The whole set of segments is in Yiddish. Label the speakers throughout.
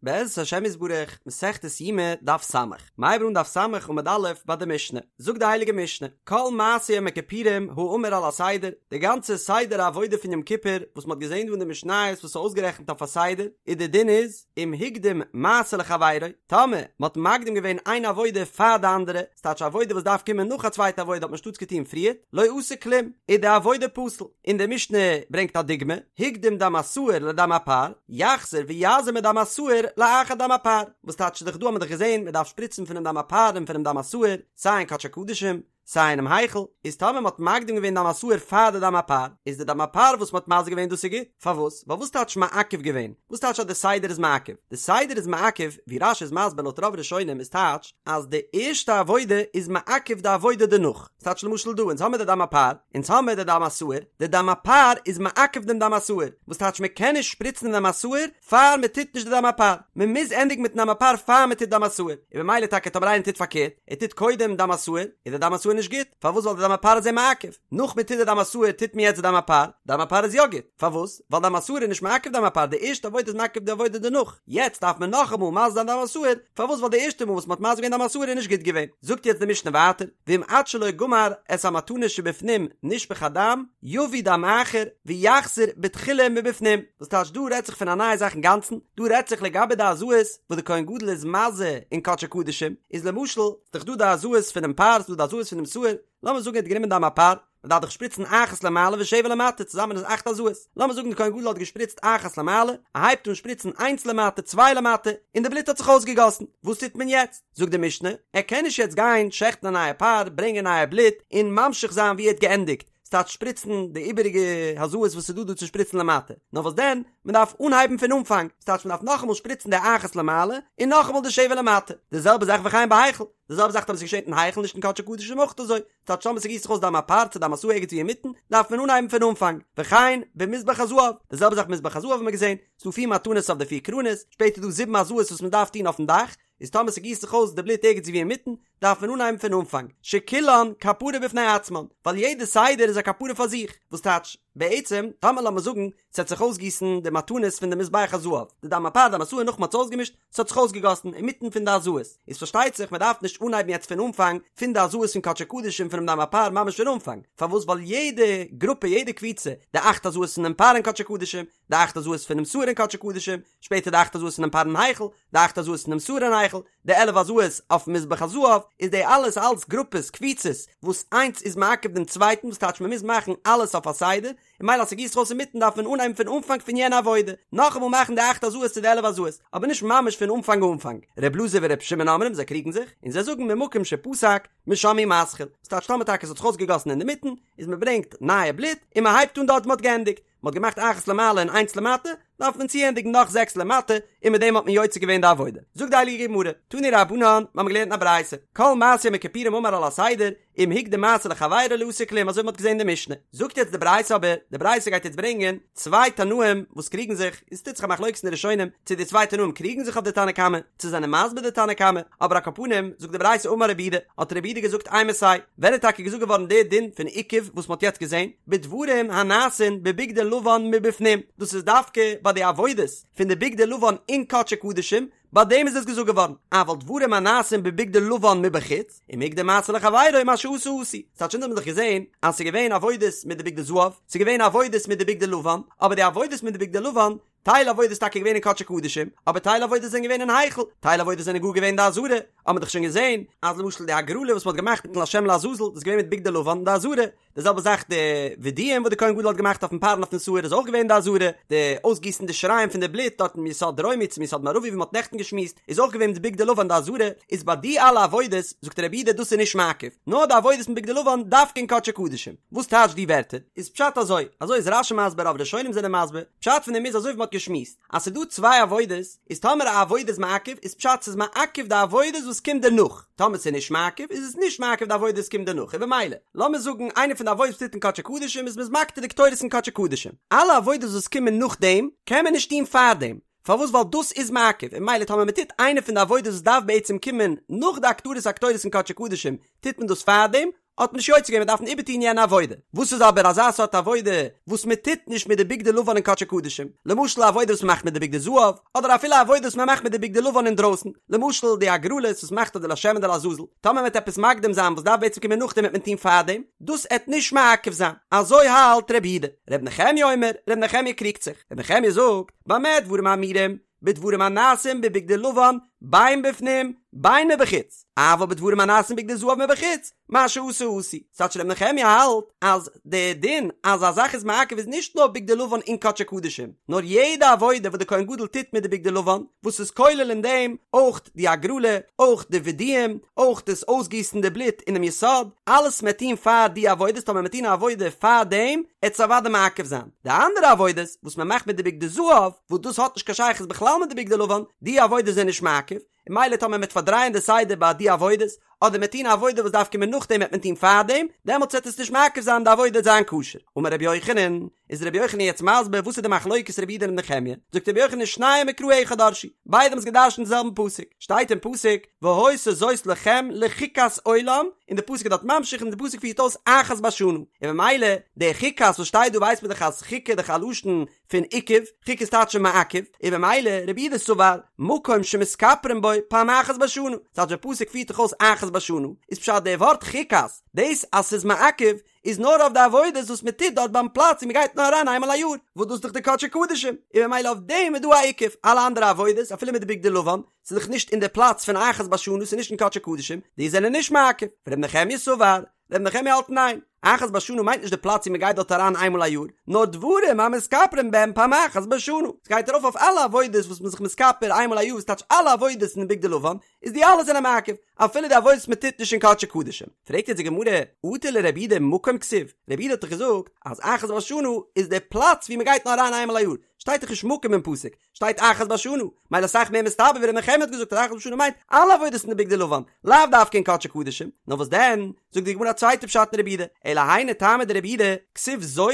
Speaker 1: בעזרת השם יתברך, מסכת יומא, דף ס'. מ'הייבט אן דף ס' עמוד א' ביי די משנה. זאגט די הייליגע משנה, כל מעשה יום הכיפורים האמור על הסדר, די גאנצע סדר העבודה פון יום כיפור וואס מ'האט געזען דא אין די משניות וואס איז אויסגערעכנט אויף א סדר, איז די דין איז, אם הקדים מעשה לחבירו, טאמער מ'האט מקדים געווען איין עבודה פאר די אנדערע, ס'טייטש א עבודה וואס דארף קומען נאך א צווייטע עבודה האט מען שטאטס געטון פריער, לא עשה כלום, איז די עבודה פסול. און די משנה ברענגט א דוגמא, הקדים דם השעיר לדם הפר, יחזור ויזה מדם השעיר לאחר דם הפר, וואס טייטש דאך דא האט מען דאך געזען מען דארף שפריצן פונעם דם הפר און פונעם דם השעיר, סיי אין קדשי קדשים, סיי אינעם היכל, איז טאמער מען האט מקדים געווען דם השעיר פאר די דם הפר, איז די דם הפר וואס מען האט מזה געווען דאס איז גוט, פארוואס? ווייל וואס טייטש מעכב געווען? וואס טייטש אז די סדר איז מעכב? די סדר איז מעכב, ווי רש"י איז מסביר לויט רוב ראשונים איז טייטש אז די ערשטע עבודה איז מעכב די עבודה דערנאך, ס'טייטש למשל דא אונז האמיר די דם הפר, אונז האמיר די דם השעיר, די דם הפר איז מעכב דעם דם השעיר, וואס טייטש מען קען נישט שפריצן דעם דם השעיר פאר מען טוט נישט די דם הפר, מען מוז ענדיגן מיטן דם הפר פאר מען טוט דם השעיר, און במילא טאקע טאמער איינער טוט פארקערט, ער טוט קודם דם השעיר, איז די דם השעיר נישט גוט, פארוואס ווייל די דם הפר איז אים מעכב, נאך מען טוט די דם השעיר טוט מען יעצט די דם הפר, דם הפר איז יא גוט, פארוואס? ווייל דם השעיר איז נישט מעכב דם הפר, די ערשטע עבודה איז מעכב די עבודה דערנאך, יעצט דארף מען נאכאמאל מזה זיין דם השעיר, פארוואס ווייל די ערשטע מאל וואס מען האט מזה געווען דם השעיר איז נישט גוט געווען, זאגט יעצט די משנה ווייטער, ואם עד שלא גמר את המתנות שבפנים נשפך הדם, יביא דם אחר ויחזור בתחילה מבפנים, וואס טייטש דא רעדט זיך פון א נייע זאך אינגאנצן, דא רעדט זיך לגבי די הזאות וואס די כהן גדול איז מזה אין קדשי קדשים, איז למשל, ס'דאך דא די הזאות פונעם פר, ס'דא די הזאות פונעם שעיר, לאמיר זאגן ער האט גענומען דם הפר, מען דארף דאך שפריצן אחת למעלה ושבע למטה, צוזאמען איז אכט הזאות. לאמיר זאגן די כהן גדול האט געשפריצט אחת למעלה, ער הייבט אן שפריצן איינס למטה, צוויי למטה, און די בלוט האט זיך אויסגעגאסן. וואס טוט מען יעצט? זאגט די משנה, ער קען נישט יעצט גיין שעכטן א נייע פר, ברענגען נייע בלוט, און ממשיך זיין ווי ער האט געענדיגט, ס'טייטש שפריצן די איבעריגע הזאות וואס איז דא דא צו שפריצן למטה. נאר וואס דען, מען דארף אנהייבן פון אנפאנג, ס'טייטש מען דארף נאכאמאל שפריצן די אחת למעלה, און נאכאמאל די שבע למטה. די זעלבע זאך וכן בהיכל, די זעלבע זאך טאמער ס'איז געשען אין היכל נישט אין קדשי קדשים אויך אזוי, ס'טייטש טאמער ס'גיסט זיך אויס דם הפר צו דם השעיר ערגעץ ווי אינמיטן, דארף מען אנהייבן פון אנפאנג. וכן במזבח הזהב, די זעלבע זאך מזבח הזהב האט מען געזען, ס'דא פיר מתנות אויף די פיר קרנות, שפעטער איז דא זיבן הזאות וואס מען דארף טון אויפן דאך, איז טאמער ס'גיסט זיך אויס די בלוט ערגעץ ווי אינמיטן, דארף מען אנהייבן פון אנפאנג, שכולן כפרה בפני עצמן, ווייל יעדע סדר איז א כפרה פאר זיך, וואס טייטש, בעצם, טאמער לאמיר זאגן, ס'העט זיך אויסגיסן די מתנות פון די מזבח הזהב, די דם הפר דם השעיר נאך מ'האט עס אויסגעמישט, ס'האט זיך אויסגעגאסן אינמיטן פון די הזאות, איז פארשטייט זיך מ'דארף נישט אנהייבן יעצט פון אנפאנג פון די הזאות פון קדשי קדשים פונעם דם הפר ממש פון אנפאנג, פארוואס ווייל יעדע גרופע יעדע קבוצה, די אכט הזאות פונעם פר אין קדשי קדשים, די אכט הזאות פונעם שעיר אין קדשי קדשים, שפעטער די אכט הזאות פונעם פר אין היכל, די אכט הזאות פונעם שעיר אין היכל, די 11 הזאות אויפן מזבח הזהב, איז די אלעס אלס גרופעס קבוצות וואס איינס איז מעכב דעם צווייטן וואס טייטש מ'מוז מאכן אלעס אויף א סדר, און ממילא אז ס'גיסט זיך אויס אינמיטן דארף מען אנהייבן פון אנפאנג פון יענע עבודה, נאכאמאל מאכן די אכט הזאות צו די 11 הזאות, אבער נישט ממש פון אנפאנג אנפאנג. ר' אלעזר ור' שמעון אומרים זיי קריגן זיך, און זיי זאגן ממקום שפסק משם הוא מתחיל, וואס טייטש טאמער טאקע ס'האט זיך אויסגעגאסן אינדערמיטן, איז מ'ברענגט נייע בלוט און מ'הייבט אן דארט וואו מ'האט געענדיגט, מ'האט געמאכט אחת למעלה און איינס למטה, דארף מען צוענדיגן נאך זעקס למטה, און מיט דעם האט מען יוצא געווען די עבודה. זאגט די הייליגע גמרא, תנו רבנן, מיר האבן געלערנט אין א ברייתא, כל מעשה יום הכיפורים האמור על הסדר, אם הקדים מעשה לחבירו לא עשה כלום, אזוי ווי מ'האט געזען אין די משנה. זאגט יעצט די ברייתא אבער, די ברייתא גייט יעצט ברענגען צוויי תנאים וואס קריגן זיך, און ס'טוט זיך א מחלוקת אין די ראשונים, צו די צוויי תנאים קריגן זיך אויף די תנא קמא, צו זענען מסביר די תנא קמא, אבער על כל פנים, זאגט די ברייתא אמר רב יהודה, האט רב יהודה געזאגט אימתי, ווען איז טאקע געזאגט געווארן די דין פון עיכוב וואס מ'האט יעצט געזען, בדברים הנעשין בבגדי לבן מבפנים, דאס איז דווקא ביי די עבודות פון די בגדי לבן אין קדשי קדשים, ביי דעם איז עס געזאגט געווארן, אבל דברים הנעשין בבגדי לבן מבחוץ, אם הקדים מעשה לחבירו מה שעשה עשוי, ס'טייטש אונז האבן דאך געזען אז ס'איז געווען עבודות מיט די בגדי זהב, ס'איז געווען עבודות מיט די בגדי לבן, אבער די עבודות מיט די בגדי לבן, טייל עבודות איז טאקע געווען אין קדשי קדשים, אבער טייל עבודות זענען געווען אין היכל, טייל עבודות זענען גאר געווען אין די עזרה, האט מען דאך שוין געזען אז למשל די הגרלה וואס מען האט געמאכט מיטן לשם לעזאזל דאס איז געווען מיט בגדי לבן אין די עזרה, די זעלבע זאך די וידויים וואס די כהן גדול האט געמאכט אויפן פר און אויפן שעיר איז אויך געווען אין די עזרה, די אויסגיסן די שיריים פון די בלוט דארט מיסוד דרומי צו מיסוד מערבי ווי מען האט נעכטן געשמועסט איז אויך געווען מיט בגדי לבן אין די עזרה, איז ביי די אלע עבודות זאגט רב יהודה דאס איז נישט מעכב, נאר די עבודות מיט בגדי לבן דווקא אין קדשי קדשים. וואס טייטש די ווערטער? איז פשט אזוי, אזוי איז רש"י מסביר רוב ראשונים זענען מסביר, פשט פון דעם איז אזוי ווי מ'האט געשמועסט, אז ס'איז דא צוויי עבודות, איז טאמער א עבודה איז מעכב, איז פשט ס'איז מעכב די עבודות וואס קומט דערנאך, טאמער ס'איז נישט מעכב, איז עס נישט מעכב די עבודות וואס קומט דערנאך, און במילא, לאמיר זאגן איינע פון די עבודות וואס טוט אין קדשי קדשים איז מ'איז מקטיר די קטורת אין קדשי קדשים, אלע עבודות וואס קומען נאכדעם, קען מען נישט טון פארדעם, פארוואס ווייל דאס איז מעכב, און במילא טאמער מ'טוט איינע פון די עבודות וואס דארף בעצם קומען נאך די הקטרת הקטורת אין קדשי קדשים, טוט מען דאס פארדעם, האט מען נישט יוצא געווען, מען דארף איבערטון יענע עבודה. וואס איז אבער אזא סארט עבודה וואס מען טוט נישט מיט די בגדי לבן אין קדשי קדשים? למשל א עבודה וואס מען מאכט מיט די בגדי זהב, אדער אפילו א עבודה וואס מען מאכט מיט די בגדי לבן אינדרויסן, למשל די הגרלות וואס מען מאכט אויף די לשם און די לעזאזל, טאמער מען וועט עפעס מקדים זיין וואס דארף בעצם קומען נאכדעם וועט מען טון פארדעם, דאס עט נישט מעכב זיין. אזוי האלט רבי יהודה. רבי נחמיה אומר, רבי נחמיה קריגט זיך. רבי נחמיה זאגט, במה דברים אמורים, בדברים הנעשים בבגדי לבן בין בפנים בין מבחוץ, אבל בדברים הנעשים בבגדי זהב מבחוץ, מה שעשו עשוי. ס'טייטש רבי נחמיה האלט אז די דין אז א זאך איז מעכב איז נישט נאר בגדי לבן אין קדשי קדשים, נאר יעדע עבודה וואס די כהן גדול טוט מיט די בגדי לבן, וואס איז כולל אין דעם אויך די הגרלה, אויך די וידויים, אויך דאס אויסגיסן די בלוט אינעם יסוד, אלעס מ'עט טון פאר די עבודות, טאמער מ'עט טון א עבודה פאר דעם, עט עס אוודאי מעכב זיין. די אנדערע עבודות וואס מען מאכט מיט די בגדי זהב, וואס דאס האט נישט קיין שייכות בכלל מיט די בגדי לבן, די עבודות זענען נישט מעכב, און ממילא טאמער מען וועט פארדרייען די סדר ביי די עבודות, אדער מ'עט טון א עבודה וואס דארף קומען נאכדעם וועט מען טון פארדעם, דעמאלטס וועט עס נישט מעכב זיין די עבודה וועט זיין כשר. אמר רבי יוחנן, איז רבי יוחנן יעצט מסביר וואס איז די מחלוקת רבי יהודה און רבי נחמיה, זאגט רבי יוחנן שניהם מקרא אחד דרשו, ביידע האבן עס געדרשנט די זעלבן פסוק, שטייט אין פסוק, והיתה זאת לכם לחוקת עולם, און די פסוק איז דארט ממשיך און די פסוק פירט אויס אחת בשנה, און ממילא די חוקת וואס שטייט דא ווייסט מען דאך אז חוקה איז דאך א לשון פון עיכוב, חוקה איז טייטש מעכב, און ממילא רבי יהודה סבר מקום שמתכפרין בו פעם אחת בשנה, ס'טייטש די פסוק פירט דאך אויס אחת בשנה, איז פשט די ווארט חוקת, דאס אז ס'איז מעכב איז נאר אויף די עבודות וואס מען טוט דארט ביים פלאץ און מען גייט נאר אריין איינמאל א יאר, וואס דאס איז דאך די קדשי קדשים, און ממילא אויף דעם איז דא א עיכוב, אלע אנדערע עבודות אפילו מיט די בגדי לבן, ס'איז דאך נישט אין די פלאץ פון אחת בשנה, ס'איז נישט אין קדשי קדשים, די זענען נישט מעכב, ור' נחמיה סבר, ר' נחמיה האלט ניין, אחת בשנה מיינט נישט די פלאץ ווי מען גייט דארט אריין איינמאל א יאר, נאר דברים המתכפרין בהם פעם אחת בשנה, ס'גייט ארויף אויף אלע עבודות וואס מ'איז זיך מתכפר איינמאל א יאר וואס טייטש אלע עבודות אין בגדי לבן, איז די אלע זענען מעכב, אפילו די עבודות וואס מען טוט נישט אין קדשי קדשים. פרעגט יעצט די גמרא, אטו לרבי יהודה מקום כתיב, רבי יהודה האט דאך געזאגט אז אחת בשנה איז די פלאץ ווי מען גייט נאר אריין איינמאל א יאר, שטייט דאך נישט מקום אין פסוק, שטייט אחת בשנה, מילא אסאך מער מסתבר ווי ר' נחמיה האט געזאגט אז אחת בשנה מיינט אלע עבודות אין די בגדי לבן, לאו דווקא אין קדשי קדשים, נאר וואס דען, זאגט די גמרא א צווייטע פשט אין רבי יהודה, אלא היינו טעמא דרבי יהודה, כתיב זאת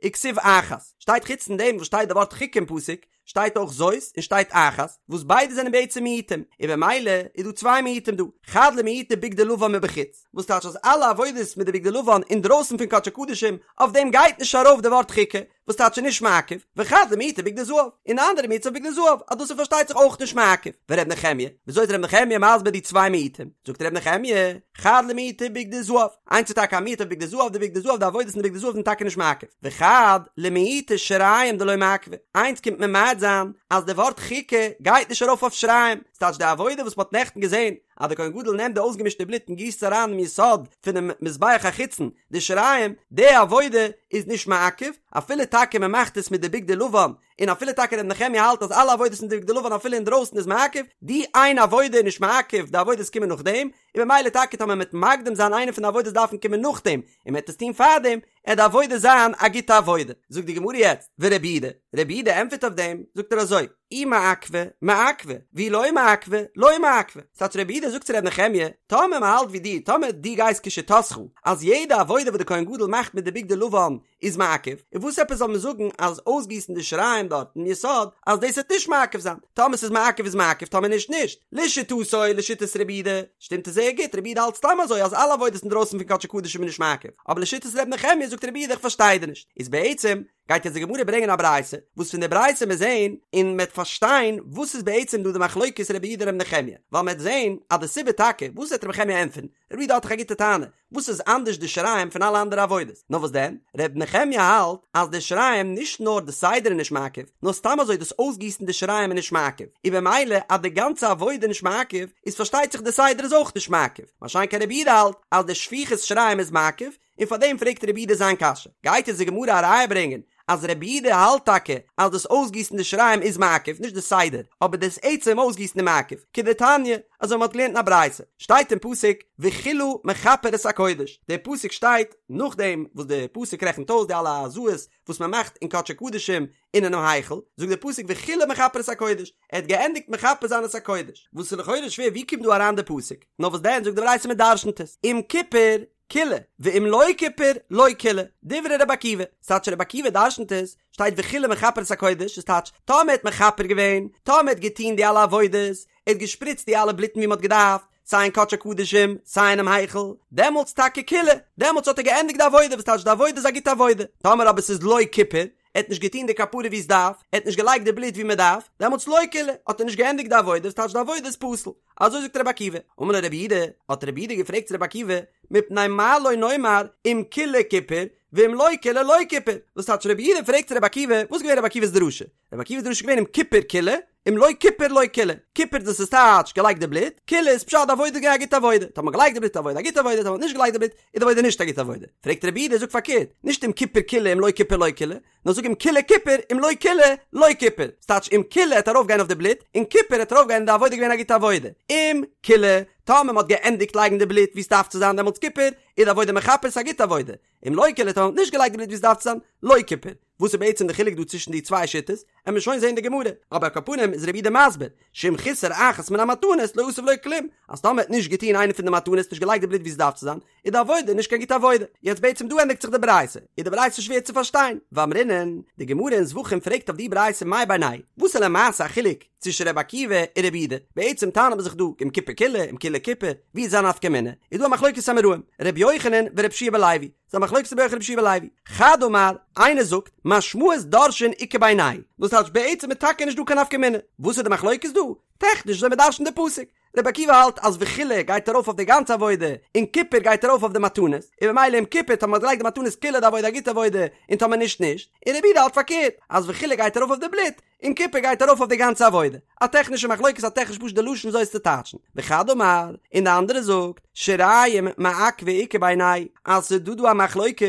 Speaker 1: וכתיב אחת, שטייט חוץ פון דעם וואס שטייט די ווארט חוקה אין פסוק, שטייט אויך זאת און שטייט אחת, וואס ביידע זענען בעצם מיעוטים, און במילא איז דא צוויי מיעוטים דא, חד למעוטי בגדי לבן מבחוץ, וואס טייטש אז אלע עבודות מיט די בגדי לבן אינדרויסן פון קדשי קדשים, אויף דעם גייט נישט ארויף די ווארט חוקה, וואס טייטש איז נישט מעכב, וחד למעוטי בגדי זהב, און די אנדערע מיעוט אויף בגדי זהב, אז דאס איז פארשטייט זיך אויך נישט מעכב. ור' נחמיה, וויאזוי איז ר' נחמיה מסביר די צוויי מיעוטים? זאגט ר' נחמיה, חד למעוטי בגדי זהב, איינס איז טאקע א מיעוט אויף בגדי זהב, די בגדי זהב, די עבודות אין די בגדי זהב זענען טאקע נישט מעכב, וחד למעוטי שיריים דלא מעכבי, איינס קומט ממעט זיין אז די ווארט חוקה גייט נישט ארויף אויף שיריים, ס'טייטש די עבודה וואס מ'האט נעכטן געזען אז די כהן גדול נעמט די אויסגעמישטע בלוט און גיסט עס אריין אינעם יסוד פונעם מזבח החיצון, די שיריים, די עבודה איז נישט מעכב, אפילו טאקע מען מאכט עס מיט די בגדי לבן, און אפילו טאקע ר' נחמיה האלט אז אלע עבודות מיט די בגדי לבן אפילו אינדרויסן איז מעכב, די איין עבודה איז נישט מעכב, די עבודות קומען נאכדעם, און במילא טאקע טאמער מען וועט מקדים זיין איינע פון די עבודות דארפן קומען נאכדעם, און מען וועט עס טון פארדעם, עט די עבודה זיין א גוטע עבודה. זאגט די גמרא יעצט, ורבי יהודה, רבי יהודה ענטפערט אויף דעם, זאגט ער אזוי, אי מעכבא, מעכבא, ואי לא מעכבא, לא מעכבא. ס'טייטש רבי יהודה זאגט צו ר' נחמיה, טאמער מען האלט ווי דיר, טאמער דו גייסט כשיטתך, אז יעדע עבודה וואס די כהן גדול מאכט מיט די בגדי לבן איז מעכב, און וואס עפעס זאל מען זאגן אז אויסגיסן די שיריים דארט אין יסוד, אז דאס וועט נישט מעכב זיין, טאמער ס'איז מעכב איז מעכב טאמער נישט נישט, לשיטתו לשיטת רבי יהודה, שטימט עס זייער גוט, רבי יהודה האלט סתם אזוי אז אלע עבודות אינדרויסן פון קדשי קדשים איז נישט מעכב, אבער לשיטת ר' נחמיה זאגט רבי יהודה איך פארשטיי דיר נישט, איז בעצם גייט יעצט די גמרא ברענגען א ברייתא, וואס פון די ברייתא מיר זעהן און מ'עט פארשטיין וואס איז בעצם דא די מחלוקת רבי יהודה ר' נחמיה, ווייל מ'עט זעהן אז די סיבה טאקע וואס וועט ר' נחמיה ענטפערן, רבי יהודה האט דאך א גוטע טענה, וואס איז אנדערש די שיריים פון אלע אנדערע עבודות? נאר וואס דען? ר' נחמיה האלט אז די שיריים נישט נאר די סדר איז נישט מעכב, נאר סתם אזוי דאס אויסגיסן די שיריים איז נישט מעכב, און במילא אז די גאנצע עבודה איז נישט מעכב, איז פארשטייט זיך די סדר איז אויך נישט מעכב, מה שאין כן רבי יהודה האלט אז די שפיכת שיריים איז מעכב, און פאר דעם פרעגט רבי יהודה זיין קשיא. גייט אונז די גמרא א ראיה ברענגען אז רבי יהודה האלט טאקע אז דאס אויסגיסן די שיריים איז מעכב, נישט די סדר, אבער דאס עצם אויסגיסן איז מעכב, כדתניא, אזוי מען האט געלערנט אין א ברייתא, שטייט אין פסוק וכלה מכפר את הקודש, דער פסוק שטייט נאכדעם וואס דער פסוק רעכנט אויס די אלע הזאות וואס מען מאכט אין קדשי קדשים און אינעם היכל, זאגט דער פסוק וכלה מכפר את הקודש, ער האט געענדיגט מכפר זיין את הקודש, וואס איז לכאורה שווער ווי קומט דא אריין דער פסוק, נאר וואס דען זאגט די ברייתא מען דרשנ'ט עס, אם כיפר כלה, ואם לא כיפר לא כלה, דברי רבי עקיבא, ס'טייטש רבי עקיבא דרשנ'ט עס, שטייט וכלה מכפר את הקודש, איז טייטש, טאמער ער האט מכפר געווען, טאמער ער האט געטוהן די אלע עבודות, ער האט געשפריצט די אלע בלוטן ווי מ'האט געדארפט, סיי אין קדשי קדשים, סיי אינעם היכל, דעמאלטס טאקע כילה, דעמאלטס האט ער געענדיגט די עבודה, וואס טייטש די עבודה איז א גוטע עבודה, טאמער אבער ס'איז לא כיפר, ער האט נישט געטון די כפרה ווי עס דארף, ער האט נישט געלייגט די בלוט ווי מען דארף, דעמאלטס לא כילה, האט ער נישט געענדיגט די עבודה, וואס טייטש די עבודה איז פסול. אזוי זאגט רבי עקיבא. אמר לו רבי יהודה, האט רבי יהודה געפרעגט צו רבי עקיבא, מפני מה לא נאמר אם כילה כיפר, ואם לא כילה לא כיפר, וואס טייטש רבי יהודה פרעגט צו רבי עקיבא, וואס איז געווען רבי עקיבא'ס דרשה? רבי עקיבא'ס דרשה איז געווען אם כיפר כילה, אם לא כיפר לא כילה, כיפר דאס איז טייטש געלייגט די בלוט, כילה איז פשט די עבודה איז געווען א גוטע עבודה, טאמער מ'האט געלייגט די בלוט איז די עבודה א גוטע עבודה, טאמער מ'האט נישט געלייגט די בלוט איז די עבודה נישט א גוטע עבודה. פרעגט רבי יהודה זאג פארקערט, נישט אם כיפר כילה אם לא כיפר לא כילה, נאר זאג אם כילה כיפר אם לא כילה לא כיפר, ס'טייטש אם כילה העט ארויף גיין אויף די בלוט, און כיפר העט ארויף גיין די עבודה געווען א גוטע עבודה, אם כילה, טאמער מ'האט געענדיגט לייגן די בלוט ווי ס'דארף צו זיין דעמאלטס כיפר, איז די עבודה מכפר ס'איז א גוטע עבודה, אם לא כילה טאמער מ'האט נישט געלייגט די בלוט ווי ס'דארף צו זיין, לא כיפר. וואס איז בעצם די חילוק דא צווישן די צוויי שיטות? עמיר שוין זעהן די גמרא, אבער על כל פנים איז רבי יהודה מסביר, שאם חיסר אחת מן המתנות לא עשה ולא כלום, אז טאמער האט נישט געטוהן איינע פון די מתנות נישט געלייגט די בלוט ווי ס'דארף צו זיין, איז די עבודה נישט קיין גוטע עבודה. יעצט בעצם דא ענדיגט זיך די ברייתא, איז די ברייתא שווער צו פארשטיין, ואמרינן, די גמרא אין זבחים פרעגט אויף די ברייתא מאי בינייהו וואס איז למעשה א חילוק צווישן רבי עקיבא און רבי יהודה, בעצם טענה'ט מען זיך דא אם כיפר כילה אם כילה כיפר, ווי איז א נפקא מינה? איז דא א מחלוקת אמוראים, רבי יוחנן ורבי יהושע בן לוי, ס'איז א מחלוקת רבי יוחנן רבי יהושע בן לוי. חד אמר, איינער זאגט, משמעות דורשין איכא בינייהו וואס טייטש בעצם איז טאקע נישט דא קיין נפקא מינה. וואס איז די מחלוקת דא? טעכניש אזוי מ'דרש'נט די פסוק. רבי עקיבא האלט אז וכילה גייט ארויף אויף די גאנצע עבודה, און כיפר גייט ארויף אויף די מתנות, און במילא אם כיפר טאמער מ'האט געלייגט די מתנות כילה די עבודה א גוטע עבודה, און טאמער נישט נישט. און רבי יהודה האלט פארקערט, אז וכילה גייט ארויף אויף די בלוט, און כיפר גייט ארויף אויף די גאנצע עבודה. א טעכנישע מחלוקת א טעכניש פשוט די לשון וויאזוי עס צו טייטשן. וחד אמר, און די אנדערע זאגט, שיריים מעכבא איכא בינייהו, אז ס'איז דא דא א מחלוקת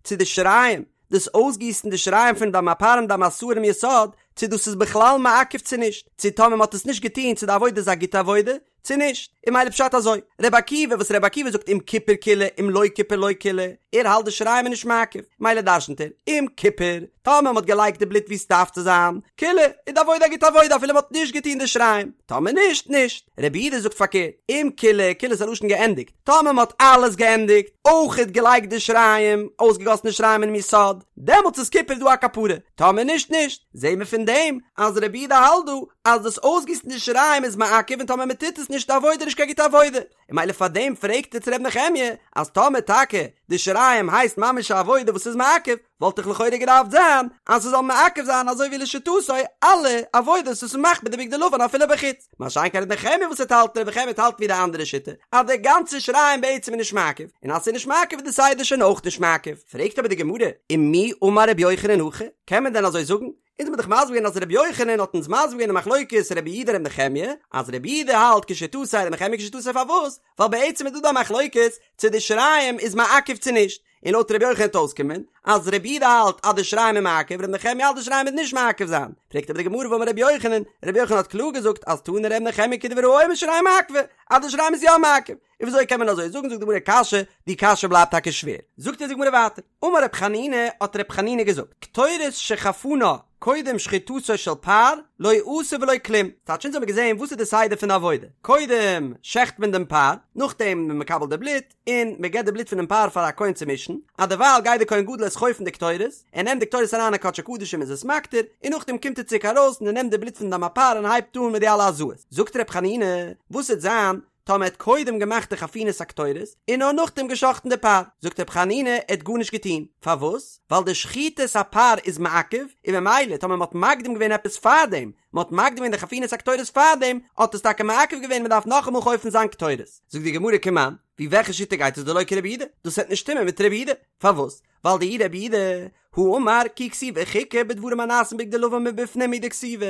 Speaker 1: צו די שיריים, דאס אויסגיסן די שיריים פון דם הפר און דם השעיר אינעם יסוד, צו דאס איז בכלל מעכב צו נישט, צו טאמער מ'האט עס נישט געטון צו די עבודה איז א גוטע עבודה, צו נישט? און ממילא פשט אזוי, רבי עקיבא וואס רבי עקיבא זאגט אם כיפר כילה אם לא כיפר לא כילה, ער האלט די שיריים איז נישט מעכב, ממילא דרשנ'ט ער, אם כיפר, טאמער מ'האט געלייגט די בלוט ווי ס'דארף צו זיין, כילה, איז די עבודה א גוטע עבודה אפילו מ'האט נישט געטון די שיריים, טאמער נישט, נישט. רבי יהודה זאגט פארקערט, אם כילה, כילה איז א לשון געענדיגט, טאמער מ'האט אלעס געענדיגט, אויכעט געלייגט די שיריים, אויסגעגאסן די שיריים אינעם יסוד, דעמאלטס איז כיפר דא א כפרה, טאמער נישט, נישט. זעהן מיר פון דעם אז רבי יהודה האלט דא אז דאס אויסגיסן די שיריים איז מעכב און טאמער מען טוט עס נישט די עבודה נישט קיין גוטע עבודה, און ממילא פאר דעם פרעגט ער צו ר' נחמיה אז טאמער טאקע די שיריים הייסט ממש א עבודה וואס איז מעכב וואלט דאך לכאורה געדארפט זיין אז ס'זאל מעכב זיין אזוי ווי לשיטתו אלע עבודות וואס מ'מאכט מיט די בגדי לבן אפילו בחוץ, מה שאין כן ר' נחמיה וואס ער האלט ר' נחמיה האלט ווי די אנדערע שיטה אז די גאנצע שיריים בעצם איז נישט מעכב און אז ס'איז נישט מעכב איז די סדר שוין אויך נישט מעכב, פרעגט אבער די גמרא ומי אמר ר' יוחנן הכי? קען מען דען אזוי זאגן? אונז האבן דאך מסביר געווען אז רבי יוחנן האט אונז מסביר געווען די מחלוקת רבי יהודה רבי נחמיה, אז רבי יהודה האלט כשיטתו רבי נחמיה כשיטתו פארוואס? ווייל בעצם איז דא דא א מחלוקת צו די שיריים איז מעכב צו נישט, און לויט רבי יוחנן וועט אויסקומען אז רבי יהודה האלט אז די שיריים איז מעכב רבי נחמיה האלט די שיריים איז נישט מעכב זיין, פרעגט אבער די גמרא והאמר רבי יוחנן, רבי יוחנן האט קלאר געזאגט אז תני רבי נחמיה כדברי האומר שיריים מעכבי, אז די שיריים איז יא מעכב, און וויאזוי קען מען אזוי זאגן זאגט די גמרא קשיא, די קשיא בלייבט טאקע שווער. זאגט אונז די גמרא ווייטער, אמר רב חנינא, האט רב חנינא געזאגט, קטורת שחפנה קודם שחיטתו של פר, לא עשה ולא כלום. טייטש אונז האבן געזען וואס איז די סדר פון די עבודה, קודם שעכט מען דעם פר, נאכדעם איז מען מקבל די בלוט, און מען געבט די בלוט פונעם פר פאר א כהן צו מישן, א דערווייל גייט דער כהן גדול איז חופן די קטורת, ער נעמט די קטורת אריין אין קדשי קדשים איז עס מקטיר, און נאכדעם קומט ער צוריק ארויס און ער נעמט די בלוט פון דם הפר און הייבט אן מיט די אלע הזאות. זאגט רב חנינא, וואס וועט זיין טאמער ער האט קודם געמאכט די חפינת הקטורת און נאר נאכדעם גע'שחט'ן די פר, זאגט ר' חנינא ער האט גארנישט געטון, פארוואס? ווייל די שחיטת הפר איז מעכב, און ממילא טאמער מ'האט מקדים געווען עפעס פארדעם, מ'האט מקדים געווען די חפינת הקטורת פארדעם, האט עס טאקע מעכב געווען מ'דארף נאכאמאל חופן זיין קטורת. זאגט די גמרא כמאן, ווי וועלכע שיטה גייט עס דלא כרבי יהודה? דאס וועט נישט שטימען מיט רבי יהודה, פארוואס? ווייל דאי רבי יהודה הא אמר כי כתיבה חוקה בדברים הנעשים בבגדי לבן מבפנים הוא דכתיבה,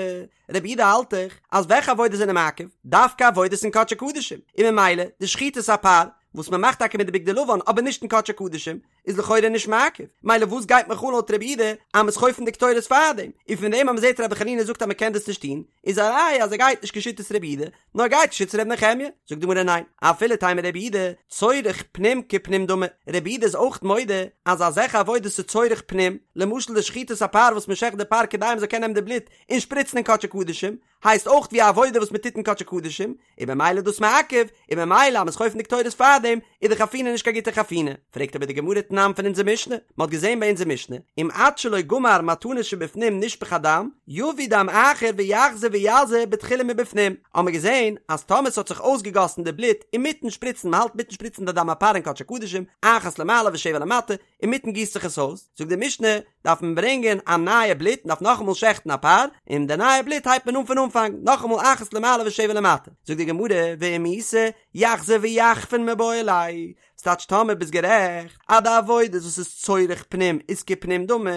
Speaker 1: רבי יהודה האלט דאך אז וועלכע עבודות זענען מעכב? דווקא עבודות אין קדשי קדשים, און ממילא די שחיטת הפר וואס מען מאכט טאקע מיט די בגדי לבן אבער נישט אין קדשי קדשים איז לכאורה נישט מעכב, מילא וואס גייט מיך אן לויט רבי יהודה אז מ'איז חופן די קטורת פארדעם, און פון דעם אז מ'זעט רבי חנינא זאגט אז מ'קען דאס נישט טון איז א ראיה אז ער גייט נישט כשיטת רבי יהודה, נאר גייט כשיטת ר' נחמיה, זאגט די גמרא ניין, אפילו תימא רבי יהודה, צורך פנים כפנים דמי, רבי יהודה איז אויך מודה אז אזעלכע עבודות איז צורך פנים, למשל די שחיטת הפר וואס מען שעכט די פר כדי מען זאל קענען נעמען די בלוט און שפריצן אין קדשי קדשים, הייסט אויך ווי א עבודה וואס מען טוט אין קדשי קדשים, און במילא איז דאס מעכב, און במילא אז מען איז חופן די קטורת פארדעם, איז די חפינה נישט קיין גוטע חפינה. פרעגט אבער די גמרא תנן. תנן פון אונזער משנה, מען האט געזען ביי אונזער משנה, אם עד שלא גמר מתנות שבפנים נשפך הדם, יביא דם אחר ויחזור ויזה בתחילה מבפנים, האט מען געזען אז טאמער ס'האט זיך אויסגעגאסן די בלוט אינמיטן שפריצן, מען האלט אינמיטן שפריצן די דם הפר אין קדשי קדשים, אחת למעלה ושבע למטה, אינמיטן גיסט זיך עס אויס, זאגט די משנה, דארף מען ברענגען א נייע בלוט, מען דארף נאכאמאל שעכטן א פר, און די נייע בלוט הייבט מען אן פון אנפאנג, נאכאמאל אחת למעלה ושבע למטה, זאגט די גמרא, ואם איתא, יחזור ויחפין מיבעי ליה, ס'טייטש טאמער ביסט גערעכט אז די עבודות וואס איז צורך פנים איז כפנים דמי,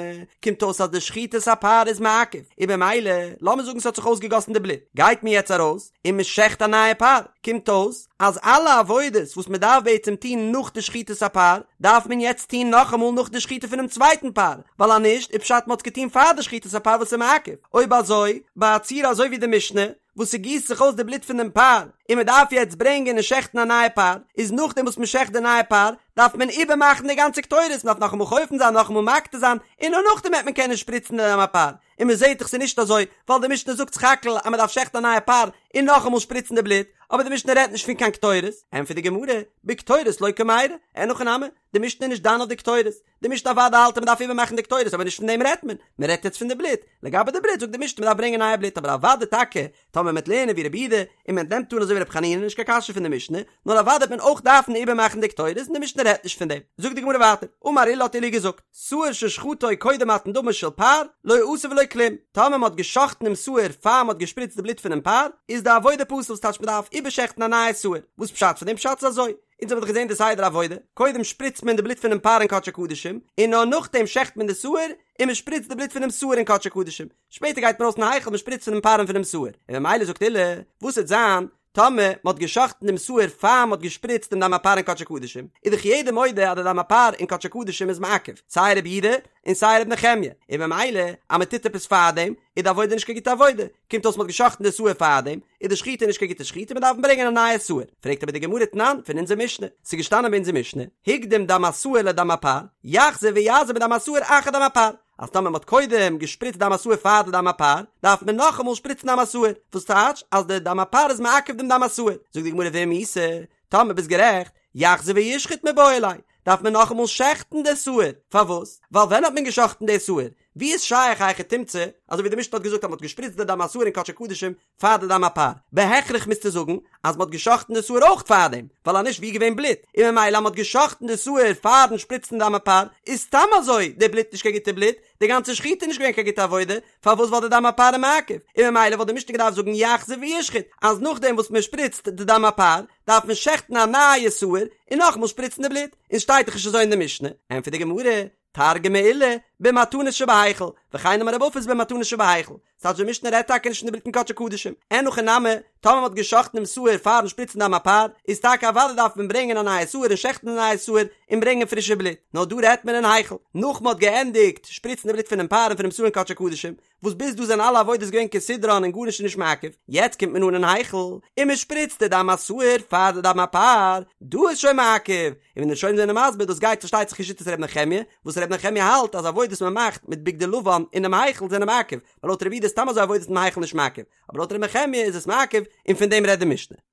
Speaker 1: קומט אויס אז די שחיטת הפר איז מעכב, און במילא, לאמיר זאגן ס'האט זיך אויסגעגאסן די בלוט, גייט מען יעצט ארויס און מ'שעכט א נייע פר, קומט אויס אז אלע עבודות וואס מ'דארף בעצם טון נאך די שחיטת הפר, דארף מען יעצט טון נאכאמאל נאך די שחיטה פונעם צווייטן פר, ווייל אז נישט איז פשט מ'האט עס געטון פאר די שחיטת הפר וואס איז מעכב, אויב אזוי, ביי א ציור אזוי ווי די משנה, וואס ס'גיסט זיך אויס די בלוט פון דעם פר, און מ'דארף יעצט ברענגען און שעכטן א נייע פר, איז נאכדעם וואס מ'שעכט די נייע פר, דארף מען איבערמאכן די גאנצע קטורת, מ'דארף נאכאמאל חופן זיין, נאכאמאל מקטיר זיין, און נאר נאכדעם וועט מען קענען שפריצן די דם הפר. און מ'זעט דאך ס'איז נישט אזוי, ווייל די משנה זאגט סך הכל אז מ'דארף שעכטן א נייע פר, און נאכאמאל שפריצן די בלוט, אבער די משנה רעדט נישט פון קיין קטורת. ענטפערט די גמרא, בקטורת לא קמיירי, אין הכי נמי, די משנה איז נישט דן אויף די קטורת, די משנה אוודאי האלט אז מ'דארף איבערמאכן די קטורת אבער נישט פון דעם רעדט מען, מען רעדט יעצט פון די בלוט, לגבי די בלוט זאגט די משנה מ'דארף ברענגען נייע בלוט אבער אוודאי טאקע טאמער מ'וועט לערנען ווי רבי יהודה און מען נעמט אן אזוי ווי רבי חנינא נישט קיין קשיא פון די משנה, נאר אוודאי וועט מען אויך דארפן איבערמאכן די קטורת און די משנה רעדט נישט פון דעם. זאגט די גמרא ווייטער, אמר עולא האט עולא געזאגט, שעיר ששחטו קודם מתן דמו של פר, לא עשה ולא כלום, טאמער מ'האט גע'שחט'ן דעם שעיר פאר מ'האט געשפריצט די בלוט פונעם פר, איז די עבודה פסול ס'טייטש מ'דארף איבערשעכטן א נייע שעיר, וואס פשט פון דעם פשט איז אזוי, אונז האבן דאך געזען די סדר עבודה, קודם שפריצט מען די בלוט פונעם פר אין קדשי קדשים, און נאר נאכדעם שעכט מען די שעיר, און מען שפריצט די בלוט פונעם שעיר אין קדשי קדשים, שפעטער גייט מען ארויס אין היכל מען שפריצט פונעם פר און פונעם שעיר, און ממילא זאגט עולא, וואס וועט זיין טאמער מען האט געשאכטן דעם שעיר פאר מען האט געשפריצט דעם דם הפר אין קדשי קדשים, איז דאך יעדער מודה אז די דם הפר אין קדשי קדשים איז מעכב, סיי רבי יהודה און סיי רבי נחמיה, און ממילא אז מען טוט עפעס פארדעם, איז די עבודה נישט קיין גוטע עבודה, קומט אויס מען האט גע'שחט'ן די שעיר פארדעם, איז די שחיטה נישט קיין גוטע שחיטה, מען דארף ברענגען א נייע שעיר. פרעגט אבער די גמרא תנן פון אונזער משנה, ס'איז געשטאנען ביי אונזער משנה, הקדים דם השעיר לדם הפר, יחזור ויזה בדם השעיר אחר דם הפר, אז טאמער מען האט קודם געשפריצט דם השעיר פאר די דם הפר, דארף מען נאכאמאל שפריצן דם השעיר, וואס טייטש אז די דם הפר איז מעכב דעם דם השעיר. זאגט די גמרא ואם איתא, טאמער ביסט גערעכט, יחזור וישחוט מיבעי ליה, דארף מען נאכאמאל שעכטן די שעיר, פארוואס? ווייל ווען האט מען געשאכטן די שעיר? ווי איז שייך א היכי תמצא, אזוי ווי די משנה האט געזאגט אז מען האט געשפריצט די דם השעיר אין קדשי קדשים פאר די דם הפר, בהכרח מוזטו זאגן אז מען האט געשאכטן די שעיר אויך פארדעם, ווייל אז נישט ווי איז געווען בלוט, און ממילא אז מען האט געשאכטן די שעיר פארן שפריצן דם הפר, איז סתם אזוי די בלוט נישט קיין גוטע בלוט, די גאנצע שחיטה איז נישט געווען קיין גוטע עבודה, פארוואס ווייל די דם הפר איז מעכב, און ממילא וואלט די משנה געדארפט זאגן יחזור וישחוט, אז נאכדעם וואס מען שפריצט די דם הפר, דארף מען שעכטן א נייע שעיר, און נאכאמאל שפריצן די בלוט, און שטייט דאך נישט אזוי אין די משנה, ענטפערט די גמרא, תרגמה עולא, במתנות שבהיכל, וכן אמר רב אפס במתנות שבהיכל, ס'טייטש די משנה רעדט טאקע נישט פון די בלוט אין קדשי קדשים, אין הכי נמי, טאמער מ'האט גע'שחט'ן דעם שעיר פאר'ן שפריצן דם הפר, איז טאקע אוודאי דארף מען ברענגען א נייע שעיר און שעכטן א נייע שעיר און ברענגען פרישע בלוט, נאר דא רעדט מען אין היכל, נאך מ'האט געענדיגט שפריצן די בלוט פונעם פר און פונעם שעיר אין קדשי קדשים, וואס ביז דא זענען אלע עבודות געווען כסדרן און גארנישט איז נישט מעכב, יעצט קומט מען אן אין היכל און מען שפריצט די דם השעיר פאר די דם הפר, דא איז שוין מעכב, און ווי די ראשונים זענען מסביר דאס גייט פארשטייט זיך כשיטת ר' נחמיה, וואס ר' נחמיה האלט אז עבודות מען מאכט מיט בגדי לבן אינעם היכל זענען מעכב, ווייל לויט רבי יהודה איז סתם אזוי עבודות אין היכל נישט מעכב, אבער לויט ר' נחמיה איז עס מעכב, און פון דעם רעדט די משנה.